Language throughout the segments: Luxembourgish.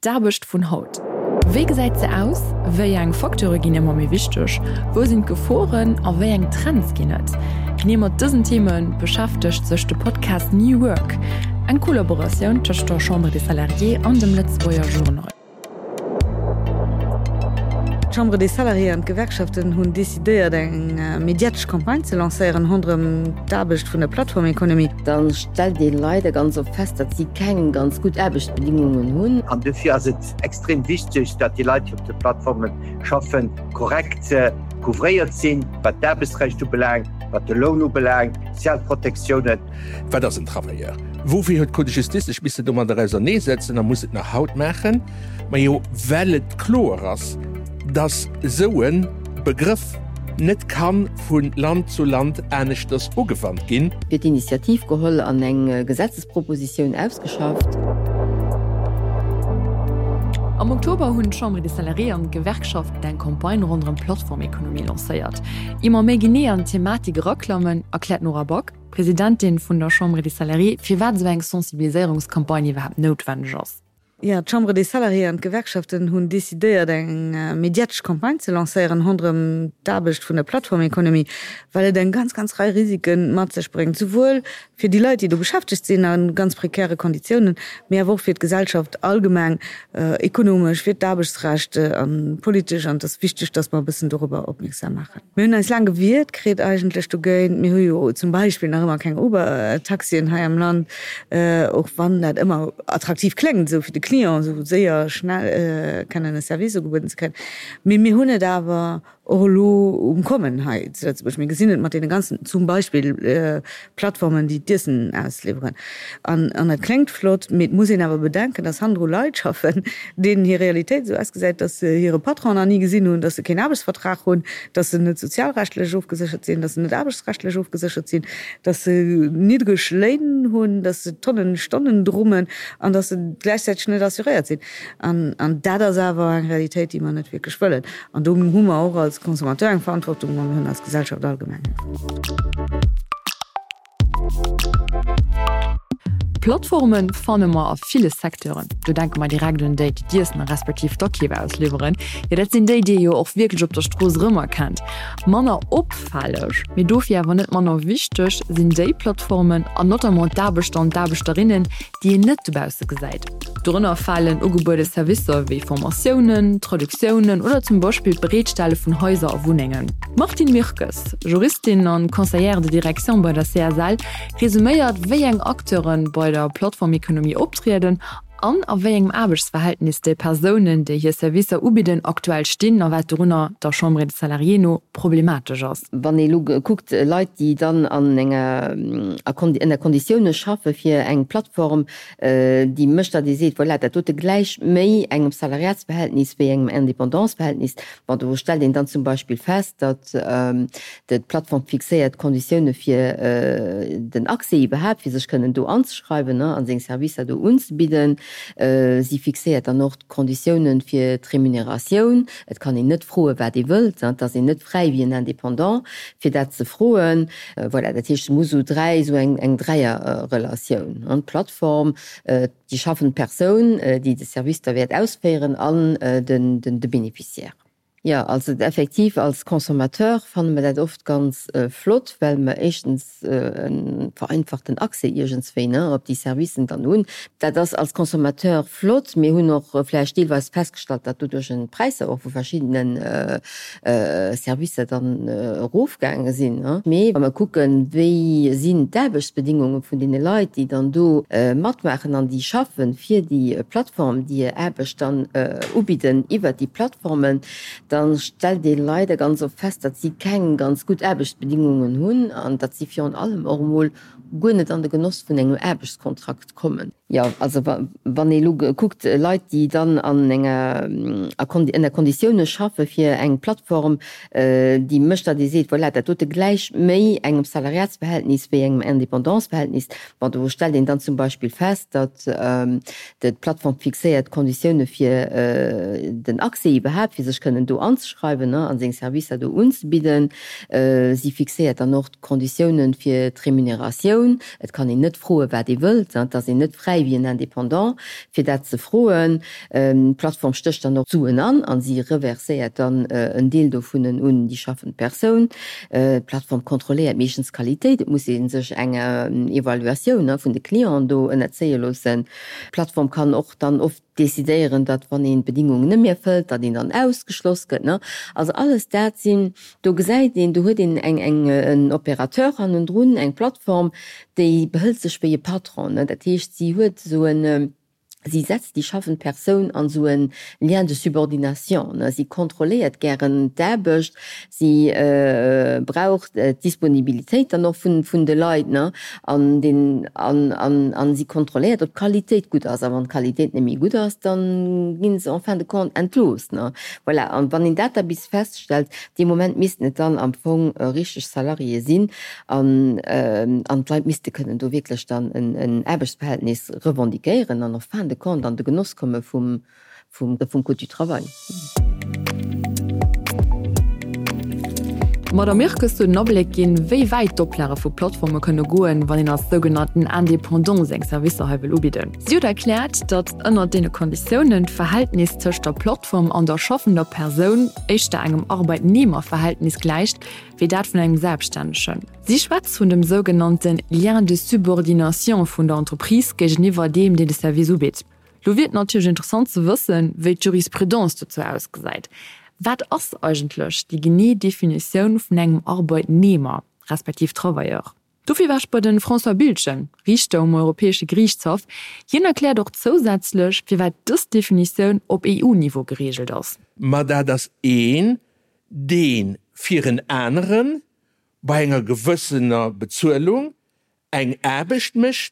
D'Aarbecht vun haut. Wéi gesäit se aus? Wéi eng Facteure ginn ëmmer méi wichteg? Wou sinn d'Geforen a wéi eng Trends ginn et? Genee mat dësen Theme beschäftegt sech de Podcast New Work, eng Kollaboratioun tëscht der Chambre des Salariés an dem Lëtzebuerger Journal. D'Chambre des Salariés an d'Gewerkschaften hunn decidéiert, eng mediatesch Campagne ze lancéieren ronderëm d'Aarbecht vun der Plattformeconomie. Da stellt ee leider ganz oft fest, datt si keng ganz gutt Aarbechtsbedingungen hunn. An dofir ass et extrem wichteg, datt déi Leit, déi op de Plattforme schaffen, korrekt couvréiert sinn, wat d'Aarbechtsrecht ubelaangt, wat de Loun ubelaangt, d'sozial Protektiounen. Wat ass en Travailleur? Woufir huet d'Cour de Justice sech missen domadder auserneesetzen a muss et nach haut maachen? Majo, well et kloer ass, dass esou e Begrëff net ka vu Land zu Land aneschters ugewannt ginn. Fir d'Initiativ geholl an eng Gesetzespropositioun ausgeschafft. Am Oktober hunn d'Chambre des Salariés an d'Gewerkschaften eng Campagne ronderëm d'Plattformekonomie lancéiert. Ier mer méi genee an d'Thematik eraklammen, erkläert d'Nora Back, Presidentin vun der Chambre des Salariés, firwat esou eng Sensibiliséierungscampagne iwwerhaapt noutwenneg ass. Jo, d'Chambre des Salariés an d'Gewerkschaften hunn decidéiert, eng mediatesch Campagne ze lancéieren ronderëm d'Aarbecht vun der Plattformeconomie, well et eng ganz, ganz Rei Risike mat sech bréngt, souwuel fir déi Leit, déi do beschäftegt sinn a ganz prekäre Konditiounen, mee awer och fir d'Gesellschaft allgemeng, ekonomesch, fir d'Aarbechtsrecht a politesch. An et ass wichteg, datt mer e bëssen dorobber opmierksam maachen. Mir hunn eis laang gewiert kritt eigentlech dogéint. Mir hu jo zum Beispill nach ëmmer keng Uber-Taxien hei am Land, och wann dat ëmmer attraktiv kléngt, esou fir de Client, esou séier, schnell kennen e Service ugebueden ze kréien. Mee mir hunn et awer och elo um Kommen hei zu Lëtzebuerg. Mir gesinn et mat deene ganzen, zum Beispill Plattformen, déi d'Iessen ausliwweren. An dat kléngt flott, mee et muss een awer bedenken, dass hannendru Leit schaffen, deenen hir Realitéit esou ausgesäit, dass se hire Patron nach ni gesinn hunn, dass se keen Aarbechtsvertrag hunn, dass se net sozialrechtlech ofgeséchert sinn, dass se net aarbechtsrechtlech ofgeséchert sinn, dass se niddreg Léin hunn, dass se Tonnen Stonnen drummen an dass se gläichzäiteg net assuréiert sinn. An dat ass awer eng Realitéit, déi mer net wierklech wëllen. An do hu mer och als Consommateur eng Verantwortung a mir hunn als Gesellschaft allgemeng eng Verantwortung. Plattforme fanne mer a ville Secteuren. Do denke mer direkt un déi, déi d'Iessen a respektiv d'Akeef ausliwweren. Jo, dat sinn déi, déi ee jo och wierklech op der Strooss erëmerkennt. Manner opfälleg, mee dofir awer net manner wichteg, sinn déi Plattformen an notamment d'Aarbechter an d'Aarbechterinnen, déi een net dobausse gesäit. Dorënner falen ugebuede Servicer wéi Formatiounen, Traductiounen oder zum Beispill d'Bereetstelle vun Haiser a Wunnengen. D'Martine Mirkes, Juristin an Conseillère de direction bei der CSL, resuméiert, wéi eng Acteure bei der Plattformekonomie optrieden an a wéi engem Aarbechtsverhältnis déi Persounen, déi hir Servicer ubidden, aktuell stinn a wat dorunner der Chambre des Salariés no problematesch ass. Wann ee elo kuckt, Leit, déi dann an enger, ënner Konditioune schaffe fir eng Plattform, déi mécht, datt ee seet, voilà, dat dote gläicht méi engem Salariatsverhältnis wéi engem Independantsverhältnis. Bon, do stellt een dann zum Beispill fest, datt d'Plattform fixéiert d'Konditioune fir den Accès iwwerhaapt, fir sech kënnen do anzeschreiwen a seng Servicer do unzebidden. Si fixéiert dann och d'Konditioune fir d'Remuneratioun. Et kann een net froen, wat ee wëllt. Et ass een net fräi wéi en Indépendant, fir dat ze froen. Voilà, dat heescht, et muss esou dräi, esou eng Dräierrelatioun, d'Plattform, déi schaffend Persoun, déi de Service da wäert ausféieren, an de Bénéficiaire. Jo, also effektiv als Consommateur fanne mer dat oft ganz flott, well mer éischtens e vereinfachten Accès iergendswéi, ne, op déi Servicen dann hunn. Dat ass als Consommateur flott. Mir hunn och vläicht deelweis festgestallt, datt doduerch d'Präisser och vu verschiddene Servicer dann erofgaange sinn. Mee wa mer kucken, wéi sinn d'Aarbechtsbedingunge vun deene Leit, déi dann do matmaachen an déi schaffe fir déi Plattform, déi hir Aarbecht dann ubidden iwwert déi Plattformen, da stellt ee leider ganz oft fest, datt si keng ganz gutt Aarbechtsbedingungen hunn an datt si virun allem och emol guer net an de Genoss vun engem Aarbechtskontrakt kommen. Jo, also wann ee elo kuckt, Leit, déi dann an enger, ënner Konditioune schaffe fir eng Plattform, déi mécht, datt ee seet, voilà, dat dote gläicht méi engem Salariatsverhältnis wéi engem Independantsverhältnis. Bon, do stellt een dann zum Beispill fest, datt d'Plattform fixéiert d'Konditioune fir den Accès iwwerhaapt, fir sech kënnen do anzeschreiwen a seng Servicer do unzebidden. Si fixéiert dann och d'Konditiounen fir d'Remuneratioun. Et kann een net froen, wat ee wëllt. Et ass een net fräi. bäi wéi en Indépendant, fir dat ze froen. D'Plattform stécht dann och d'Suen an a si reverséiert dann en Deel dovunnen un déi schaffend Persoun. D'Plattform kontrolléiert meeschtens d'Qualitéit. Et muss ee sech enger Evaluatioun vun de Clienten do ënnerzéie loossen. D'Plattform kann och dann oft decidéieren, datt wann een d'Bedingungen net méi erfëllt, datt een dann ausgeschloss gëtt. Also alles dat sinn, do gesäit een, do huet een eng, eng, en Opérateur hannendrun, eng Plattform, déi behëlt sech wéi e Patron. Dat heescht, si huet esou en, si setzt déi schaffend Persoun an esou e Lien de subordination. Si kontrolléiert gären d'Aarbecht, Si brauch d'Disponibilitéit dann och vun de Leit, ne, an den, an, an, an si kontrolléiert, ob d'Qualitéit gutt ass. A wann d'Qualitéit net méi gutt ass, da gi se en fin de compte entlooss, ne. Voilà, an wann een dat da bis feststellt, dee Moment missten et dann am Fong richteg Salariéë sinn an, an d'Leit misste kënnen do wierklech dann en, en Aarbechtsverhältnis revendiquéieren an en fin de compte an de Genoss komme vum, vum Code du travail. D'Madame Mirkes huet en Abléck ginn, wéi wäit d'Oplage vu Plattforme kënne goen, wann een als sougenannten Indépendant seng Servicer hei wëll ubidden. Si huet erkläert, datt ënnert deene Konditiounen d'Verhältnis tëscht der Plattform an der schaffender Persoun éischter engem Arbeitnehmerverhältnis gläicht, wéi dat vun engem Selbststännegen. Si schwätzt vun dem sougenannte Lien de subordination vun der Entreprise géigeniwwer deem, deen de Service ubitt. Lo wier et natierlech interessant ze wëssen, wéi d'Jurisprudence dozou ausgesäit. Wat ass eigentlech déi genee Definitioun vun engem Arbeitnehmer, respektiv Travailleur? Dofir war ech bei de François Biltgen, Riichter um Europäesche Geriichtshaff. Hien erkläert och zousätzlech, firwat dës Definitioun op EU-Niveau gereegelt ass. Ma dat ass een, dee fir en anere bei enger gewëssener Bezuelung eng Aarbecht mécht,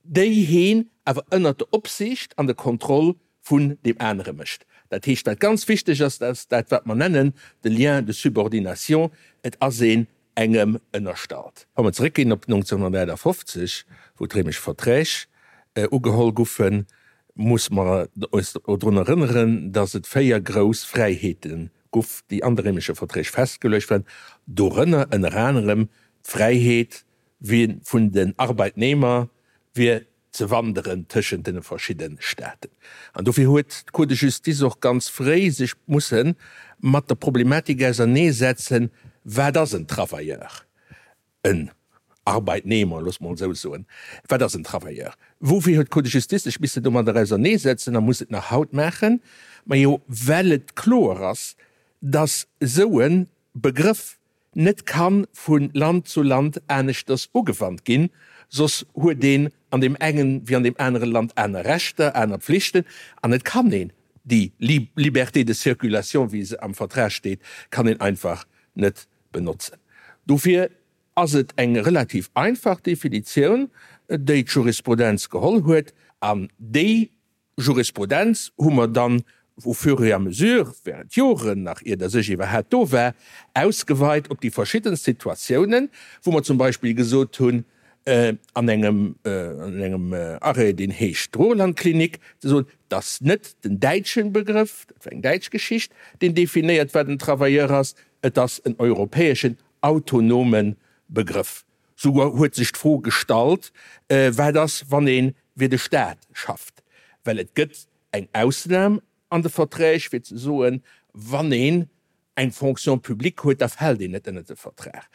déi heen awer ënnert der Opsiicht an der Kontroll vun deem anere mécht. Dat heescht, wat ganz wichteg ass, dat ass dat, wat mer nennen de Lien de subordination, et ass een engem ënnerstallt. Wa mer zeréckginn op 1958, wou d'Réimesch Verträg ugeholl guffen, muss mer eis drun erënneren, dass et véier grouss Fräiheete guff, déi an de Réimesche Verträg festgeluecht waren, dorënner ënner anerem d'Fräiheet Wee vun den Arbeitnehmer wier ze wanderen tëschent den verschidden Staaten. An dofir huet d'Cour de Justice och ganz fréi sech mussen mat der Problematik auserneesetzen, Wat ass en Travailleur, en Arbeitnehmer, loosse mer esou soen, wat ass en Travailleur? Woufir huet d'Cour de Justice sech missen domadder auserneesetzen a muss et nach haut maachen? Majo, well et kloer ass, dass esou e Begrëff net kann vu Land zu Land aneschters ugewannt ginn, soss huet een an deem engen wéi an deem anere Land aner Rechter, aner Pflichten an et kann een déi Liberté de circulation, wéi se am Vertrag steet, kann een einfach net benotzen. Dofir ass et eng relativ einfach Definitioun, déi d'Jurisprudenz geholl huet an déi Jurisprudenz hu mer dann au fur et à mesure, während Joren, nach ier dass ech iwwerhat do war, ausgeweit op déi verschiddenst Situatiounen, wou mer zum Beispill gesot hunn, an engem, an engem Arrêt, deen heescht Ruhrlandklinik, ze soen, dass net den däitschen Begrëff, dat war eng däitsch Geschicht, deen definéiert, wat en Travailleur ass, et ass en europäeschen autonome Begrëff. Souguer huet sech d'Fro gestallt, wat ass, wann ee fir de Staat schafft? Well et gëtt eng Ausnam an de Verträg, fir ze soen, wann een eng Fonction publique huet, da fält een net ënnert de Vertrag.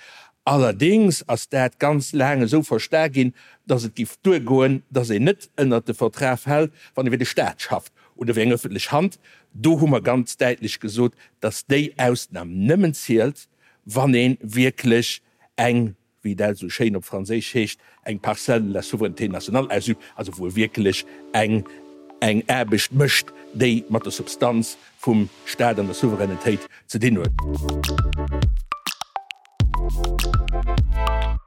Allerdéngs ass dat ganz laang esou versta ginn, datt et giff duergoen, datt een net ënnert de Vertrag fält, wann ee fir de Staat schafft oder fir eng ëffentlech Hand. Do hu mer ganz däitlech gesot, datt déi Ausnam nëmmen zielt, wann ee wierklech eng, wéi dat esou schéin op Franséisch heescht, eng Parcelle de la souveraineté nationale ausübt, also wou e wierklech eng eng Aarbecht mécht, déi mat der Substanz vum Stat an der Souveränitéit ze dinn huet.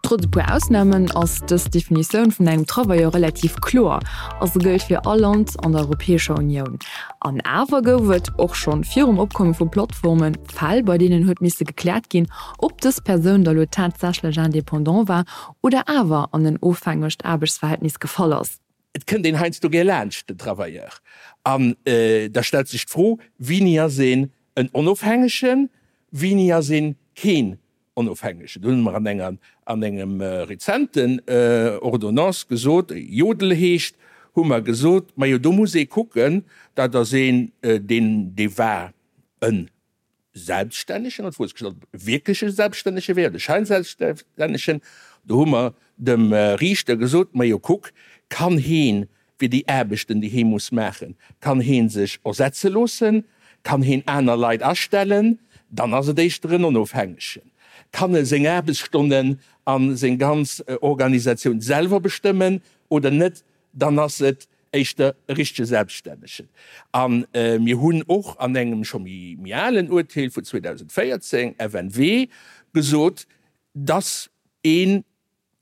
Trotz e puer Ausnamen ass dës Definitioun vun engem Travailleur relativ kloer a se gëllt fir all Land an der Europäescher Unioun. An awer gouf et, och schonn virum Opkomme vu Plattformen, Fäll, bei deenen huet misse gekläert ginn, ob dës Persoun da lo tatsächlech Indépendant war oder awer an en ofhängegt Aarbechtsverhältnis gefall ass. Et kënnt een heiansdo gär laanscht den Travailleur an da stellt sech d'Fro, Wini ass een en Onofhängegen, wini ass een keen Onofhängegen? Do hunn mer an enger, an engem rezenten Ordonnance gesot, déi Jodel heescht, hu mer gesot, Majo, do muss ee kucken, dat ass een, deen, dee war en Selbststännegen, an d'Fro ass gestallt, ob e wierkleche Selbststännege wär oder e Scheinselbststännegen. Do hu mer dem Riichter gesot, Majo, kuck, kann heen fir déi Aarbechten, déi hee muss maachen, kann hee sech ersetze loossen, kann heen aner Leit astellen, dann ass et éischter en Onofhängegen. Kann e seng Aarbechtsstonnen a seng ganz Organisatioun selwer bestëmmen oder net, dann ass et éischter e richtege Selbststännegen. A mir hunn och an engem scho méi alen Urteel vun 2014, FNW, gesot, dass ee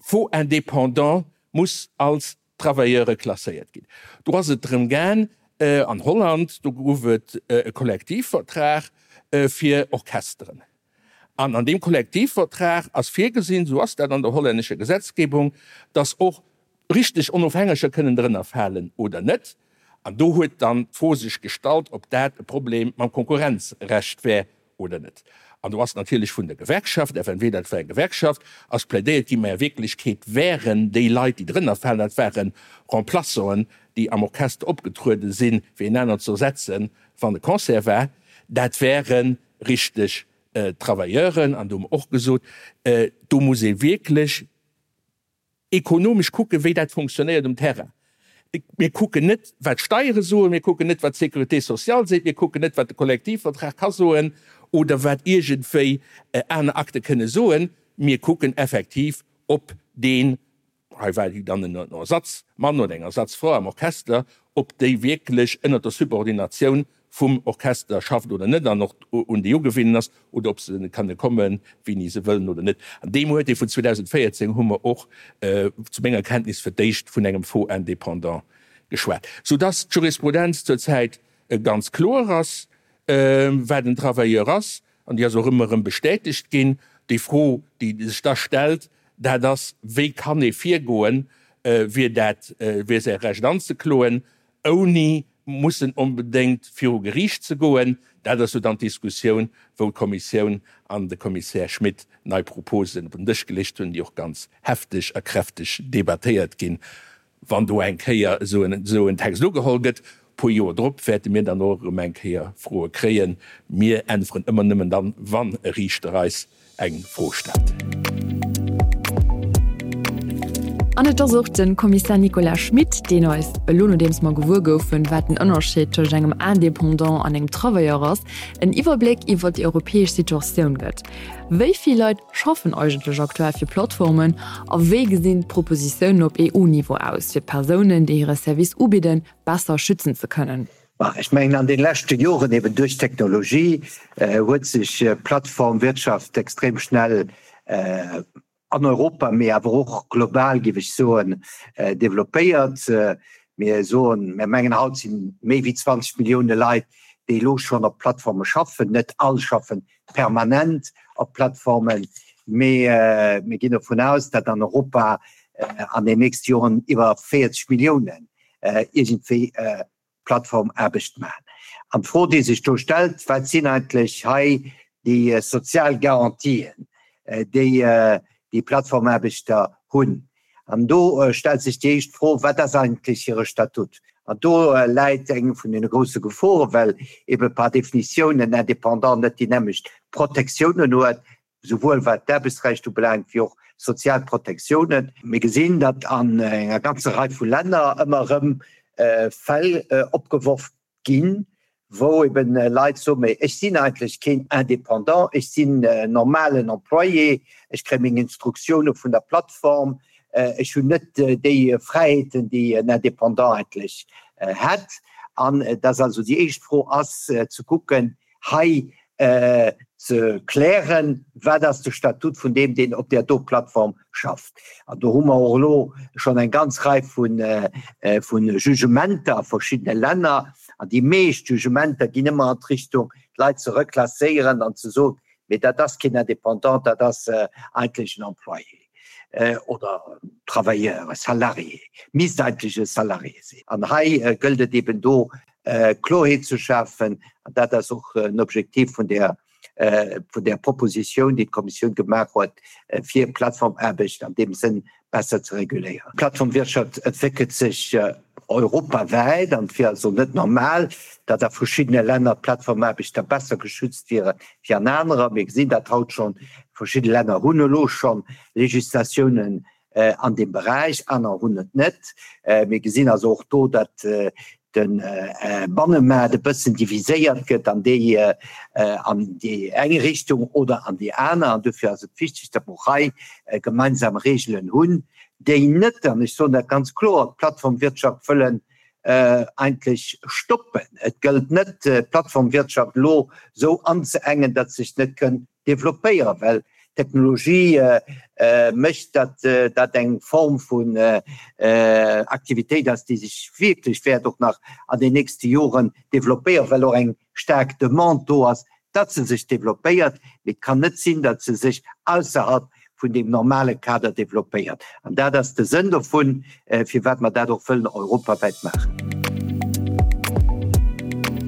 faux indépendant muss als Travailleure klasséiert ginn. Do ass et drëm gaang, an Holland, do gouf et e Kollektivvertrag fir Orchesteren. An an deem Kollektivvertrag ass virgesinn, esou ass dat an der hollännescher Gesetzgebung, dass och richteg Onofhängeger kënnen drënner falen oder net. An do huet dann d'Fro sech gestallt, ob dat e Problem mam Konkurrenzrecht wär oder net. An do ass natierlech vun der Gewerkschaft, FNW, dat war eng Gewerkschaft, ass plädéiert ginn, mä a Wierklechkeet wären déi Leit, déi drënner falen, dat ware Remplaçanten, déi am Orchester opgetruede sinn, fir een aneren ze ersetzen, wann e Concert war, dat wäre richteg Travailleuren. An do hu mer och gesot, do muss ee wierklech ekonomesch kucken, wéi dat funktionéiert um Terrain. Mir kucken net, wat d'Steiere soen, mir kucken net, wat d'Sécurité sociale seet, mir kucken net, wat de Kollektivvertrag ka soen oder wat iergendwéi aner Akte kënne soen. Mir kucken effektiv, ob deen, hei war dann en Ersatzmann oder eng Ersatzfra am Orchester, ob déi wierklech ënnert der Subordinatioun vum Orchester schafft oder net an och un déi ugewinnen ass, oder ob se kënne kommen, wéini se wëllen oder net. An deem Uerteel vun 2014 hu mer och, zu menger Kenntnis, fir d'éischt vun engem Faux indépendant geschwat, soudass d'Jurisprudenz zurzäit ganz kloer ass, wat en Travailleur ass, an déi ass och ëmmer erëm bestätegt ginn. Déi Fro, déi sech da stellt, dat ass, Wéi kann ee virgoen, fir dat, fir säi Recht anzekloen, ouni mussen onbedéngt viru Geriicht ze goen. Dat ass jo dann d'Diskussioun, wou d'Kommissioun an de Kommissär Schmit nei Proposen op den Dësch gelécht hunn, déi och ganz hefteg a kräfteg debattéiert ginn. Wann do eng Kéier esou en Text ugeholl gëtt, e puer Joer drop, wäerte mir dann och erëm eng Kéier Froe kréien. Mir äntweren ëmmer nëmmen dann, wann e Riichter eis eng Fro stellt. An et ass och de Kommissär Nicolas Schmit, deen eis, elo nodeems mer gewuer goufen, wat den Ënnerscheed tëscht engem Indépendant an engem Travailleur ass, en Iwwerbléck iwwer déi europäesch Situatioun gëtt. Wéi vill Leit schaffen eigentlech aktuell fir Plattformen a wéi gesinn d'Propositiounen op EU-Niveau aus, fir d'Persounen, déi hire Service ubidden, besser schützen ze kënnen? Bah, ech mengen an de leschte Joren, eben duerch d'Technologie, huet sech d'Plattformwirtschaft extrem schnell an Europa, mee awer och global, géif ech soen, developpéiert. Mir soen, mir mengen haut si méi wéi 20 Millioune Leit, déi elo schonn op Plattforme schaffen. Net all schaffen permanent op Plattformen, mee mir ginn dovun aus, datt an Europa an den nächste Joren iwwer 40 Milliounen iergendwéi Plattformaarbecht maachen. An d'Fro, déi sech do stellt, Wat sinn eigentlech hei déi sozial Garantien, déi déi Plattformaarbechter hunn? An do stellt sech déi éischt Fro, Wat ass eigentlech hire Statut? An do läit eng vun deene grousse Geforen, well ebe par définition en Indépendant net déi nämmlecht Protektiounen huet souwuel wat d'Aarbechtsrecht ubelaangt wéi och sozial Protektiounen. Mir gesinn, datt an enger ganzer Rei vu Länner ëmmer erëm Fäll opgeworf ginn, wou eben Leit soen, mee ech sinn eigentlech keen Indépendant, ech sinn en normalen Employé, ech kréie meng Instruktioune vun der Plattform, ech hunn net déi Fräiheeten, déi en Indépendant eigentlech hätt. An dass also déi éischt Fro ass ze kucken, hei ze klären, wat ass de Statut vun deem, deen op där do Plattform schafft. An do hu mer och elo schonn eng ganz Rei vu Jugementer a verschiddene Länner. An déi meescht Jugementer ginn ëmmer an d'Richtung, d'Leit ze reklasséieren an ze soen, mee dat ass keen Indépendant, dat ass eigentlech en Employé oder Travailleur, e Salarié, misst eigentlech e Salarié sinn. An hei gëllt et eben do Kloerheet ze schafen, an dat ass och en Objektiv vun där, vun där Propositioun, déi d'Kommissioun gemaach huet, fir Plattformaarbecht an deem Sënn besser ze reguléieren. D'Plattformwirtschaft entwéckelt sech. Europawäit an et wier also net normal, datt a verschiddene Länner d'Plattformaarbechter besser geschützt wiere wéi an anerer. Mir gesinn dat haut schonn, verschidde Länner hunn elo scho Legislatiounen an deem Beräich, aner hunn et net. Mir gesinn also och do, datt de Bannemaart e bëssen diviséiert gëtt an déi an déi eng Richtung oder an déi aner. An dofir ass et wichteg, datt mer och hei gemeinsam Regeln hunn, déi net, an ech soen dat ganz kloer, d'Plattformwirtschaft wëllen eigentlech stoppen. Et gëllt net, d'Plattformwirtschaft elo esou anzeengen, datt se sech net kënn developpéieren, well d'Technologie mécht, datt dat eng Form vun Aktivitéit ass, déi sech wierklech wäert och nach an den nächste Joren developpéieren, well och eng staark Demande do ass, datt se sech developpéiert. Mee et kann net sinn, datt se sech ausserhalb vun deem normale Kader developpéiert. An dat ass de Sënn dovun, firwat mer dat och wëllen europawäit maachen.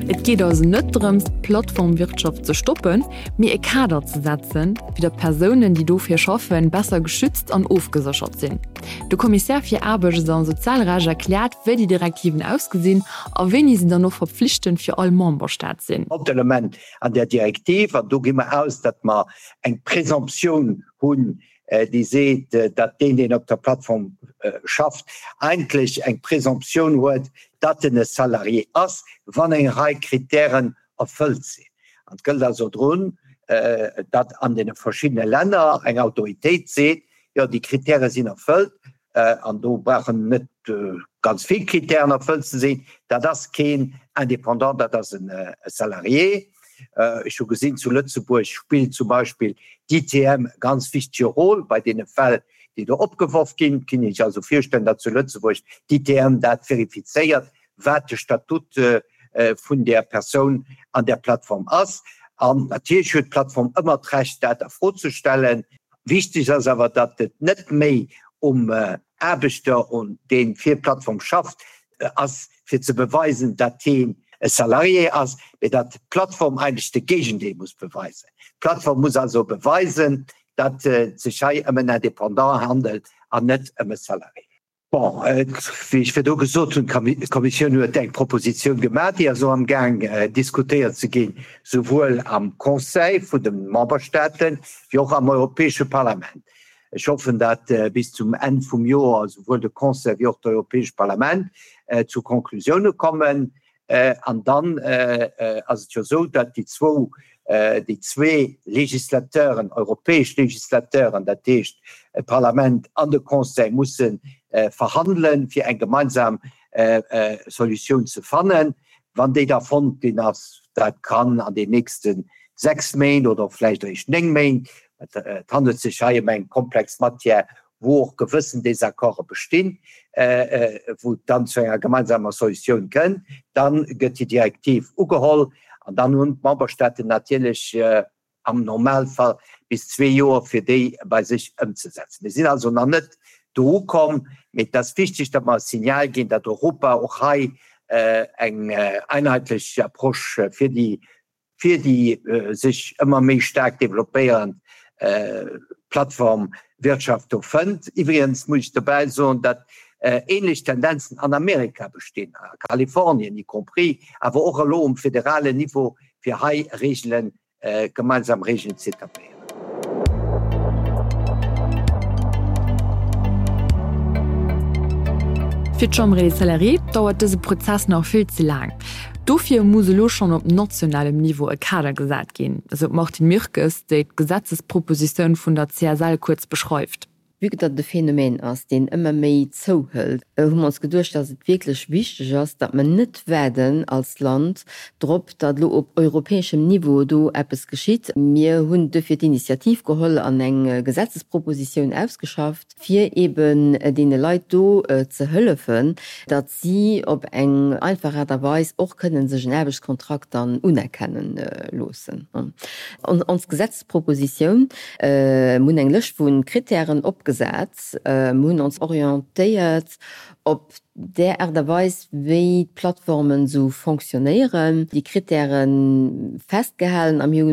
Et geet also net drëms, d'Plattformwirtschaft ze stoppen, mee e Kader ze setzen, fir datt d'Persounen, déi dofir schaffen, besser geschützt an ofgeséchert sinn. De Kommissär fir Aarbechts a Sozialrecht erkläert, wéi déi Direktiven ausgesinn a wéini se dann och verpflichtend fir all Memberstaat sinn. Hauptelement an där Direktiv, an do gi mer aus, datt mer eng Présomptioun hunn, déi seet, datt deen, deen op der Plattform schafft, eigentlech eng Présomptioun huet, datt en e Salarié ass, wann eng Rei Kritären erfëllt sinn. An et gëllt also drun, datt an deene verschiddene Länner eng Autoritéit seet, jo, déi Kritäre sinn erfëllt, an do brauchen net ganz vill Kritären erfëllt ze sinn, dat ass keen Indépendant, dat ass e Salarié. Ech hu gesinn, zu Lëtzebuerg spillt zum Beispill d'ITM e ganz wichtege Rôle bei deene Fäll, déi do opgeworf ginn. Et kann ee sech also virstellen, datt zu Lëtzebuerg d'ITM dat verifizéiert, wat de Statut vun där Persoun an där Plattform ass. An natierlech huet d'Plattform ëmmer d'Recht, dat a Fro ze stellen. Wichteg ass awer, datt et net méi um Aarbechter, dee fir d'Plattform schafft, ass, fir ze beweisen, datt hien e Salarié ass, mee datt d'Plattform eigentlech de Géigendeel muss beweisen. D'Plattform muss also beweisen, datt et sech hei ëm en Indépendant handelt an net ëm e Salarié. Bon, wéi ech virdu gesot hunn, d'Kommissioun huet eng Propositioun gemaach, déi ass elo amgaang diskutéiert ze ginn, souwuel am Conseil vun de Memberstaaten wéi och am Europäesche Parlament. Ech hoffen, datt bis zum Enn vum Joer souwuel de Conseil wéi och d'Europäescht Parlament zu Konklusioune kommen. An dann ass et jo esou, datt déi zwou, déi zwee Législateuren, europäesch Législateuren, dat heescht d'Parlament an de Conseil, musse verhandelen, fir eng gemeinsam Solutioun ze fannen. Wann déi da fonnt ginn ass, dat kann an den nächste 6 Méint oder och vläicht eréischt 9 Méint, et handelt sech hei ëm eng komplex Matière, wou och gewëssen Désaccorde bestinn, wou et dann zu enger gemeinsamer Solutioun kënn, da gëtt déi Direktiv ugeholl an dann hunn d'Memberstaaten natierlech am Normalfall bis zwee Joer, fir déi bei sech ëmzesetzen. Mir sinn also nach net do ukomm, mee et ass wichteg, datt mer e Signal ginn, datt Europa och hei eng einheetlech Approche fir déi fir déi sech ëmmer méi staark developpéierend Plattformwirtschaft do fënnt. Iwwregens muss ech dobäi soen, datt ähnlech Tendenzen an Amerika bestinn, a Kalifornien y compris, awer och elo um federalen Niveau, fir hei Regelen, gemeinsam Regelen ze etabléieren. Fir d'Chambre des Salariés dauert dëse Prozess nach vill ze laang. Dofir muss elo schonn op nationalem Niveau e Kader gesat ginn, esou d'Martine Mirkes, déi d'Gesetzespropositioun vun der CSL kuerz beschreift. Vue que datt et e Phänomen ass, deen ëmmer méi zouhëlt, hu mer ons geduecht, datt et wierklech wichteg ass, datt mer net waarden als Land drop, datt elo op europäeschem Niveau do eppes geschitt. Mir hunn duerfir d'Initiativ geholl an eng Gesetzespropositioun ausgeschafft, fir eeben deene Leit do ze hëllefen, datt si op eng einfach Aart a Weis och kënnen sech en Aarbechtskontrakt dann unerkenne loossen. Ons Gesetzespropositioun, mir hunn eng Lëscht vu Kritären opgesat. opgesat. Mir hunn ons orientéiert op där Aart a Weis, wéi d'Plattformen esou fonctionnéieren, déi Krittäre festgehalen a mir hu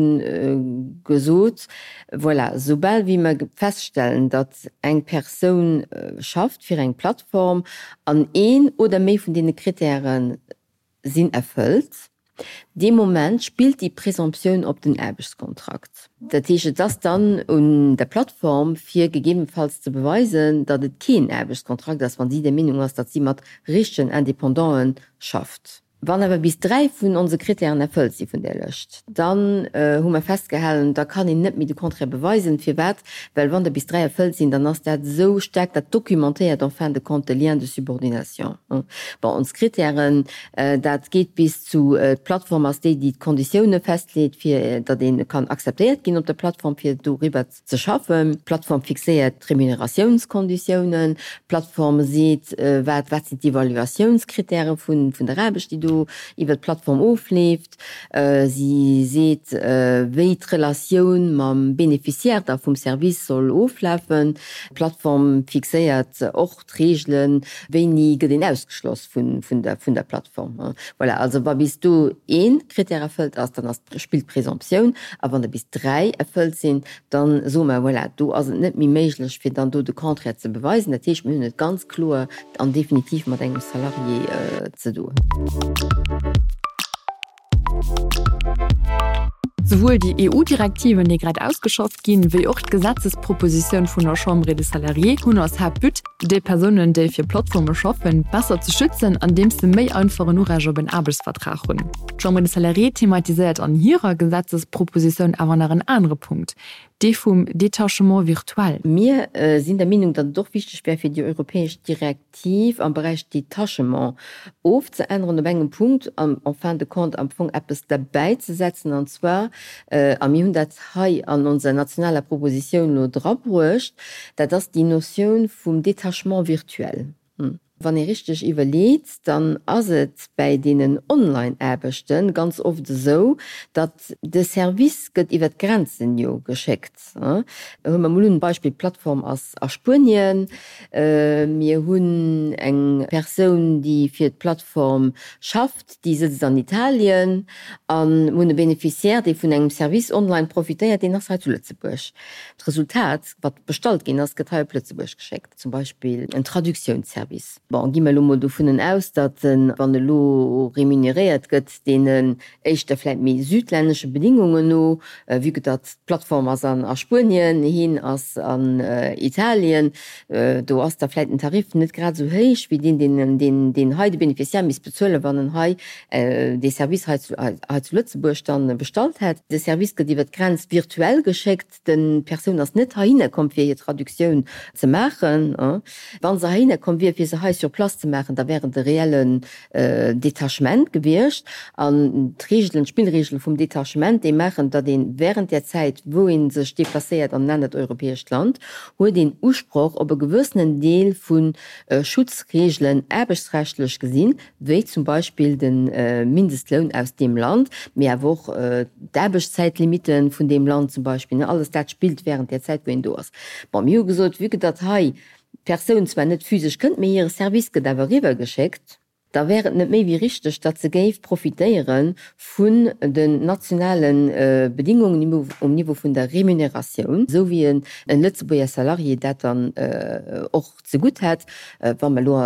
gesot, voilà, soubal wéi mer feststellen, datt eng Persoun schafft fir eng Plattform an een oder méi vun deene Krittäre sinn erfëllt, dee Moment spillt déi Présomptioun op den Aarbechtskontrakt. Dat heescht, et ass dann un der Plattform, fir gegebenfalls ze beweisen, datt et keen Aarbechtskontrakt ass, wa si der Meenung ass, datt si mat richtegen Independanten schafft. Wann awer bis 3 vun onse Kritären erfëllt si vun där Lëscht, dann hu mer festgehalen, da kann een net méi de Contraire beweisen. Firwat? Well wann der bis 3 erfëllt sinn, dann ass dat esou staark, dat documentéiert en fin de compte de lien de subordination. Bon, ons Kritären, dat geet bis zu, d'Plattform ass déi, déi d'Konditioune festleet, fir datt ee kann akzeptéiert ginn op der Plattform, fir doriwwer ze schaffen. D'Plattform fixéiert d'Remuneratiounskonditiounen. D'Plattform seet, wat wat sinn d'Evaluatiounskritäre vun der Aarbecht, déi do iwwer d'Plattform ofleeft. Si seet, wéi d'Relatioun mam Beneficiaire da vum Service soll oflafen. D'Plattform fixéiert och d'Reegelen, wéini gëtt een ausgeschloss vun der Plattform. Voilà, also wa bis do ee Krittär erfëllt ass, dann ass, spillt d'Présomptioun, a wann der bis 3 erfëllt sinn, dann soe mer, voilà, do ass et net méi méiglech, fir dann do de Contraire ze beweisen. Dat heescht, mir hunn et ganz kloer an definitiv mat engem Salarié ze doen. Souwuel déi EU-Direktiven, déi grad ausgeschafft ginn, wéi och d'Gesetzespropositioun vun der Chambre des Salariés hunn als Haaptbut, déi Persounen, déi fir Plattforme schaffen, besser ze schützen, andeems se méi einfach en Urecht op en Aarbechtsvertrag hunn. D'Chambre des Salariés thematiséiert an hirer Gesetzespropositioun awer nach en anere Punkt, dee vum Détachement virtuel. Mir sinn der Meenung, datt et och wichteg wär, fir déi europäesch Direktiv am Beräich Détachement ofzeänneren op engem Punkt an en fin de compte am Fong eppes derbäizesetzen, an zwar, a mir hunn dat hei an onser nationaler Propositioun elo drabruecht, dat ass déi Notioun vum Détachement virtuel. Wann ee richteg iwwerleet, dann ass et bäi deenen Online-Aarbechte ganz oft esou, datt de Service gëtt iwwer d'Grenzen jo geschéckt. Huele mer mol un, Beispill, d'Plattform ass a Spuenien, mir hunn eng Persoun, déi fir d'Plattform schafft, déi sëtzt an Italien, a mir hunn e Beneficiaire, dee vun engem Service online profitéiert, deen ass hei zu Lëtzebuerg. D'Resultat, wat bestallt ginn ass, gëtt hei op Lëtzebuerg geschéckt. Zum Beispill en Traductiounsservice. Bon, gi mer elo mol dovunnen aus, datt en, wann elo remuneréiert gëtt, deenen éischter vläit méi südlännesche Bedingungen no, vue que datt d'Plattform ass an a Spuenien, hien ass an Italien, do ass da vläit den Tarif net grad esou héich wéi deen, deen, deen, deen hei de Beneficiaire misst bezuelen, wann en hei dee Service hei zu, hei zu Lëtzebuerg dann bestallt hätt. De Service gëtt iwwer d'Grenz virtuell geschéckt. D'Persoun ass net heihinner komm, fir hir Traductioun ze maachen. Wa se heihinner komm wier, fir se hei sur place ze maachen, da wär et e reellen Detachement gewiescht. An d'Reegelen, d'Spillreegele vum Detachement, déi maachen, datt ee während där Zäit, wou ee sech deplacéiert an en anert europäescht Land, huet een Usproch op e gewëssenen Deel vu Schutzreegelen, aarbechtsrechtlech gesinn, wéi zum Beispill de Mindestloun aus deem Land, mee awer och d'Aarbechtszäitlimite vun deem Land zum Beispill, alles dat spillt während där Zäit, wou een do ass. Bon, mir hu gesot, vue que datt hei d'Persoun zwar net physesch kënnt, mee hire Service gëtt awer eriwwergeschéckt, da wär et net méi wéi richteg, datt se géif profitéiere vun den nationale Bedingungen um Niveau vun der Remuneratioun, esou wéi e Lëtzebuerger Salarié dat dann och zegutt hätt. Wa mer elo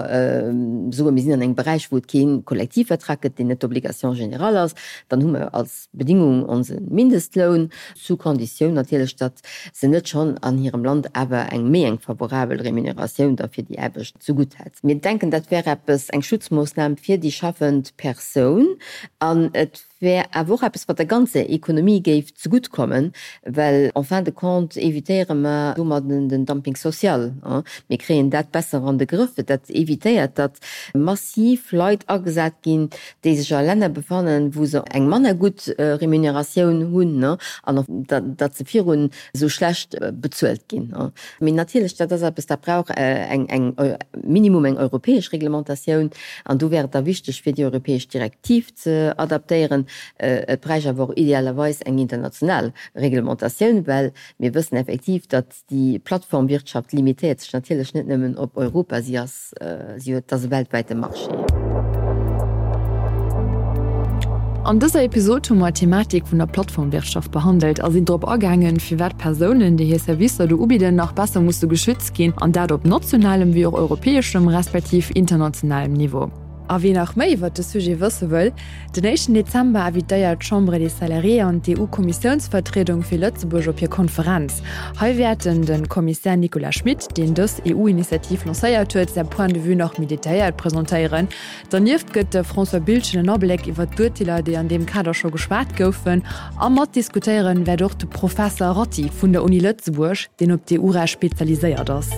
soen, mir sinn an engem Beräich, wou et kee Kollektivvertrag gëtt, deen net d'Obligation générale ass, dann hu mer als Bedingung onse Mindestloun, sous condition natierlech, datt se net schonn an hirem Land awer eng méi eng favorabel Remuneratioun da fir déi Aarbecht zegutt hätt. Mir denken, dat wär eppes, eng Schutzmoossnam fir déi schaffend Persoun an et wär awer och eppes, wat der ganzer Ekonomie géif zegutt kommen, well en fin de compte évitéiere mer domadden den Dumping social. Mir kréien dat besser an de Grëff. Dat évitéiert, datt massiv Leit agesat ginn, déi sech a Länner befannen, wou se eng manner gutt Remuneratioun hunn an datt se virun esou schlecht bezuelt ginn. Mee natierlech, dat ass eppes, dat brauch eng, eng, minimum eng europäesch Reglementatioun. An do wär et da wichteg, fir déi europäesch Direktiv ze adaptéieren. Et bräicht awer och idealerweis eng international Reglementatioun, well mir wëssen effektiv, datt déi Plattformwirtschaft limitéiert sech natierlech net nëmmen op Europa, si ass, si huet, ass e weltwäite Marché. An dëser Episod hu mer d'Thematik vun der Plattformwirtschaft behandelt a sinn drop agaangen, firwat Persounen, déi hir Servicer do ubidden, nach besser musse geschützt ginn, an dat op nationalem wéi och europäeschem respektiv internationalem Niveau. A wien nach méi iwwert de Sujet wësse wëll, Den éischten Dezember invitéiert d'Chambre des Salariés an d'EU-Kommissiounsvertriedung fir Lëtzebuerg op hir Konferenz. Hei wäerten de Kommissär Nicolas Schmit, deen dës EU-Initiativ lancéiert huet, säi Point de vue nach méi detailléiert presentéieren. Dernieft gëtt de François Biltgen en Abléck iwwer d'Urteeler, déi an deem Kader scho geschwat goufen. A matdiskutéieren wäert och de Professer Ratti vun der Uni Lëtzebuerg, deen op d'EU-Recht spezialiséiert ass.